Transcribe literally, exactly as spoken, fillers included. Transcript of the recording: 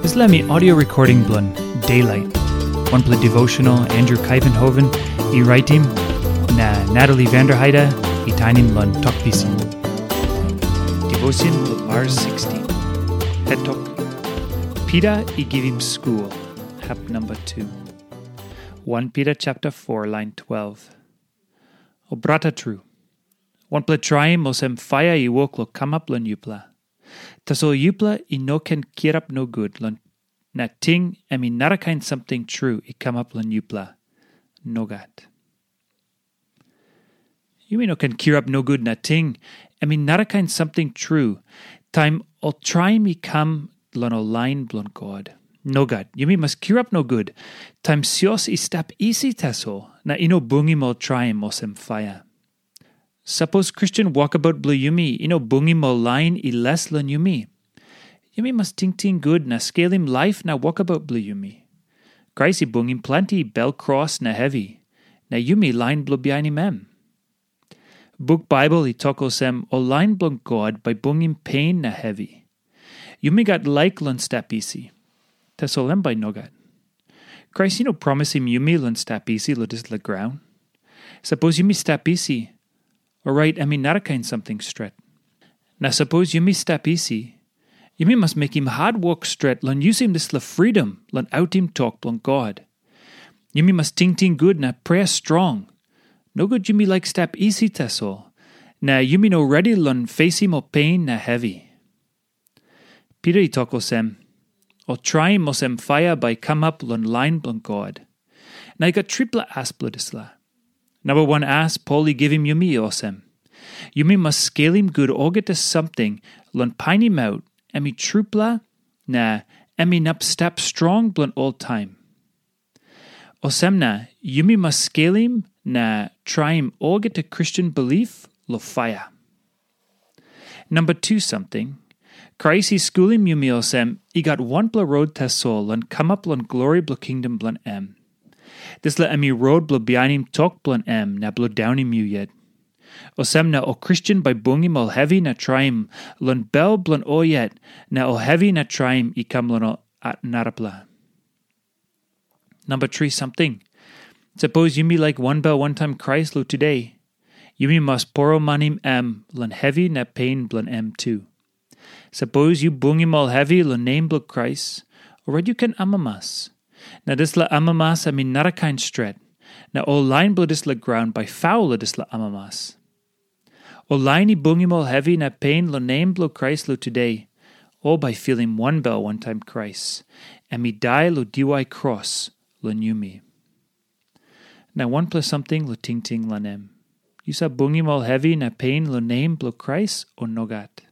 Dispela mi audio recording bilong Daylight, wanpela devotional Andrew Kaivenhoven i raitim, na Natalie Vanderheide i tainim long Tok Pisin. Devotion bilong Mars sixteen. Het tok, Pita i givim skul, hap number two. One Peter chapter four, line twelve. O brata tru, wanpela traim olsem paia i wok long kamap long yupela. Tasol yupela i no ken kirap nogut long na ting em i narakain samting tru i kamap long yupela. Nogat. Yumi no ken kirap nogut na ting em i narakain samting tru, taim ol traim i kam long ol lain bilong God. Nogat, yumi mas kirap nogut, taim sios i stap isi tasol na i no bungim ol traim olsem paia. Sapos Kristen wokabaut bilong yumi i no bungim ol lain i les long yumi, yumi mas tingting gut na skelim laip na wokabaut bilong yumi. Krais i bungim planti bel kros na hevi, na yumi lain bilong bihainim em. Buk Baibel i tok olsem, ol lain bilong God bai bungim pen na hevi. Yumi gat laik long stap isi. Tasol em bai nogat. Krais i no promisim yumi long stap isi long dispela graun. Sapos yumi stap isi, orait em i narakain samting stret. Na sapos yumi stap isi, yumi mas mekim hatwok stret long yusim dispela fridom long autim tok bilong God. Yumi mas tingting gut na prea strong. Nogut yumi laik stap isi tasol, na yumi no redi long fesim ol pen na hevi. Pita i tok olsem, ol traim olsem paia bai i kamap long lain bilong God. Na i gat tripela as bilong dispela. Namba wan as Pol i givim yumi olsem, yumi mas skelim gut olgeta samting long painimaut em i trupela na em inap stap strong bilong oltaim. Olsem na yumi mas skelim na traim olgeta Kristen bilip long paia. Namba tu samting, Krais i skulim yumi olsem i gat wanpela rot tasol long kamap long glori bilong kingdom bilong em. Dispela em i rot bilong bihainim tok bilong em na bilong daunim yu yet. Olsem na ol Kristen bai bungim ol hevi na traim long bel bilong ol yet, na ol hevi na traim i kam long ol narapela. Namba tri samting, sapos yumi laik wanbel wantaim Krais long tude, yumi mas poromanim em long hevi na pen bilong em tu. Sapos yu bungim ol hevi long nem bilong Krais, orait yu ken amamas. Na dispela amamas em i narakain stret, na ol lain bilong dispela graun bai faul long dispela amamas. Ol lain i bungim ol hevi na pen long nem bilong Krais long tude, ol bai filim wanbel wantaim Krais, em i dai long diwai kros long yumi. Na wanpela samting long tingting long em. Yu save bungim ol hevi na pen long nem bilong Krais, o nogat?